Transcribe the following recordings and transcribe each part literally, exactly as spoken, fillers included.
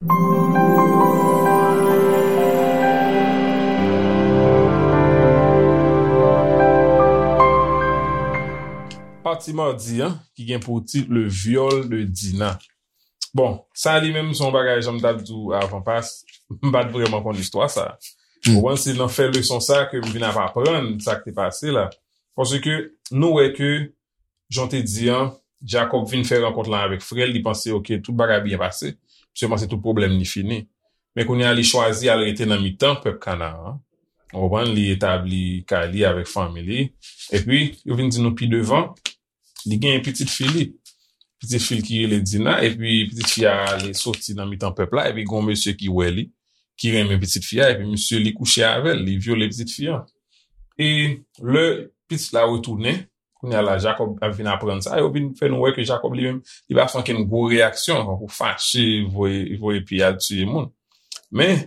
Pati madi an, ki gen pou tit Le viol de Dina. Bon, sa li menm se yon bagay, jan m t ap di w avan pas, m pa t vrèman konn istwa sa. Ou konprann, se nan fè leson sa ke m vin ap aprann sa k te pase la. Paske nou wè ke, jan w te di an, Jacob vin fè rankont lan avèk frè l, li panse, oke, tout bagay byen pase. Misye panse tout pwoblèm li fini. Men kounye a, li chwazi al rete nan mitan pèp Kanaran. Ou konprann, li etabli kay li avèk fanmi li. Epi, yo vin di nou pi devan, li gen pitit fi li. Pitit fi l ki rele Dina, epi pitit fi a ale soti nan mitan pèp la, epi gen yon mesye ki wè li, ki renmen pitit fi a, epi misye li kouche avè l, li vyole pitit fi a. E lè pitit la retounen, kounye a la, Jacob ap vin aprann sa, yo vin fè nou wè ke Jacob li menm, li pa fè ankenn gwo reyaksyon, tankou fache, voye, voye pye al tiye moun. Men,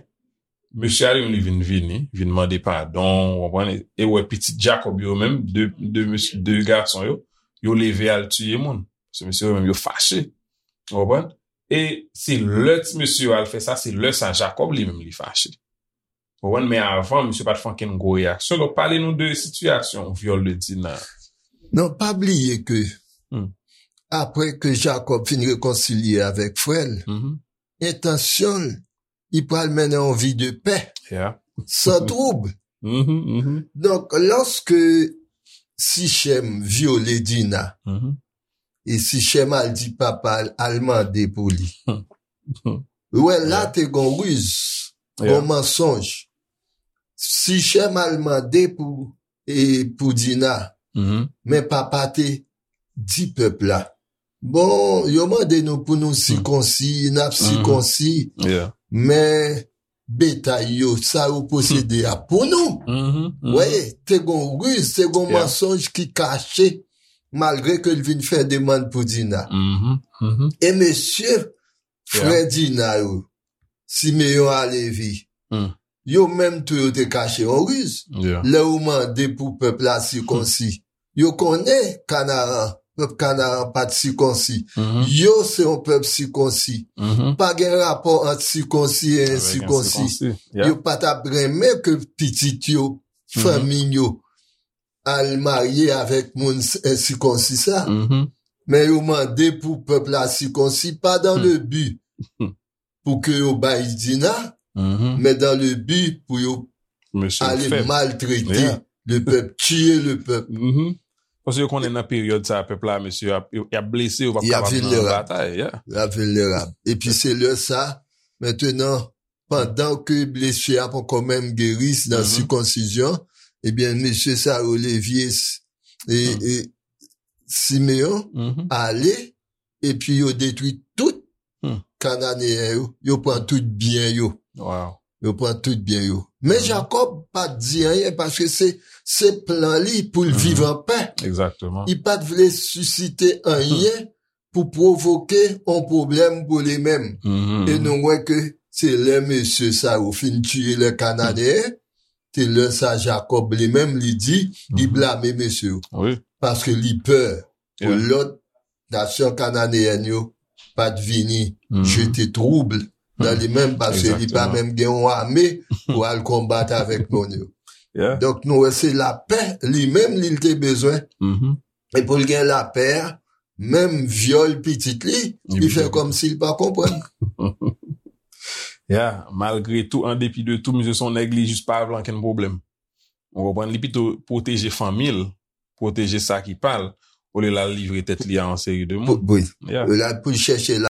mesye a li menm, li vin vini, vin mande padon, ou konprann? E wè pitit Jacob yo menm, de, de mesye, de gason yo, yo leve al tiye moun. Se mesye yo menm, yo fache. Ou konprann? E se lè ti mesye yo al fè sa, se lè sa Jacob li menm, li fache. Ou konprann? Men avan, misye pa t fè ankenn gwo reyaksyon. Donk, pale nou de sitiyasyon vyòl de Dina. Non, pa bliye ke, hmm, apre ke Jacob fin rekonsilye avèk frè l, mhm, entansyon l, li pral mennen yon vi de pè, yeah, san twoub. Mhm, mhm. Donk, lòske Sichem vyole Dina, mhm, e Sichem al di papa l, al mande pou li. Ou wè, la, yeah, te gon riz, yeah, gon mansonj. Sichem al mande pou, e, pou Dina. Mhm. Men papa te di pèp la, bon, yo mande nou pou nou, hmm, sikonsi, n ap, mhm, sikonsi. Yeah. Men betay yo, sa yo posede a pou nou. Mhm, mhm. Wè, te gon riz, te gon, yeah, mansonj ki kache, malgre ke l vin fè demann pou Dina. Mhm, mhm. E mesye, yeah, frè Dina yo, Simeyon a Levi, hmm, yo menm tou yo te kache yon riz. Yeah. Lè yo mande pou pèp la sikonsi, hmm, yo konnen Kanaran, pèp Kanaran pa t sikonsi. Mhm. Yo se yon pèp sikonsi. Mhm. Pa gen rapò ant sikonsi e ensikonsi. Avèk ensikonsi. Yeah. Yo pa t ap renmen ke pitit yo, mhm, fanmi yo, al marye avèk moun s-, ensikonsi sa. Mhm. Men yo mande pou pèp la sikonsi, pa dans, hmm, le but pou ke yo bay Dina, mhm, men dans le but pou yo, mesye, ale fèb, maltrete, yeah, le pèp, tiye le pèp. Mhm. Paske yo konnen nan peryòd sa, pèp la, mesye, y ap, y ap blese, yo p ap kapab nan batay, yeah. Y ap vilnerab. Epi se lè sa, mentenan, pandan ke blesi a poko menm geri nan, mhm, sikonsizyon, ebyen, mesye sa yo, Levi e, hmm, e Simeyon, mhm, ale, epi yo detwi tout, hmm, Kananeyen yo, yo pran tout byen yo. Wow. Yo pran tout byen yo. Men, mhm, Jakòb pa t di anyen paske se, se plan li pou l, mhm, viv an pè. Egzakteman. Li pa t vle sisite anyen, hmm, pou pwovoke yon pwoblèm pou li menm. Mhm. E nou wè ke se lè mesye sa yo fin tiye lè Kananeyen, se lè sa Jakòb li menm li di, li, mhm, blame mesye yo. Wi. Paske li pè pou, yeah, lòt nasyon kananeyèn yo pa t vini, mhm, jete twoub nan, hmm, li menm, paske li pa, egzakteman, menm gen yon ame pou al konbat avèk moun yo. Yeah. Donk, nou wè se lapè li menm li te bezwen. Mhm. E pou l gen lapè a, menm vyòl pitit li, li fè kòmsi l pa konprann. Ya, malgre tou, an depi de tou, misye se yon nèg li jis pa vle ankenn pwoblèm. Ou konprann? Li pito pwoteje fanmi l, pwoteje sa ki pa l, olye l al livre tèt li a yon seri de moun. Wi. Ya. Olye l pou l chèche la.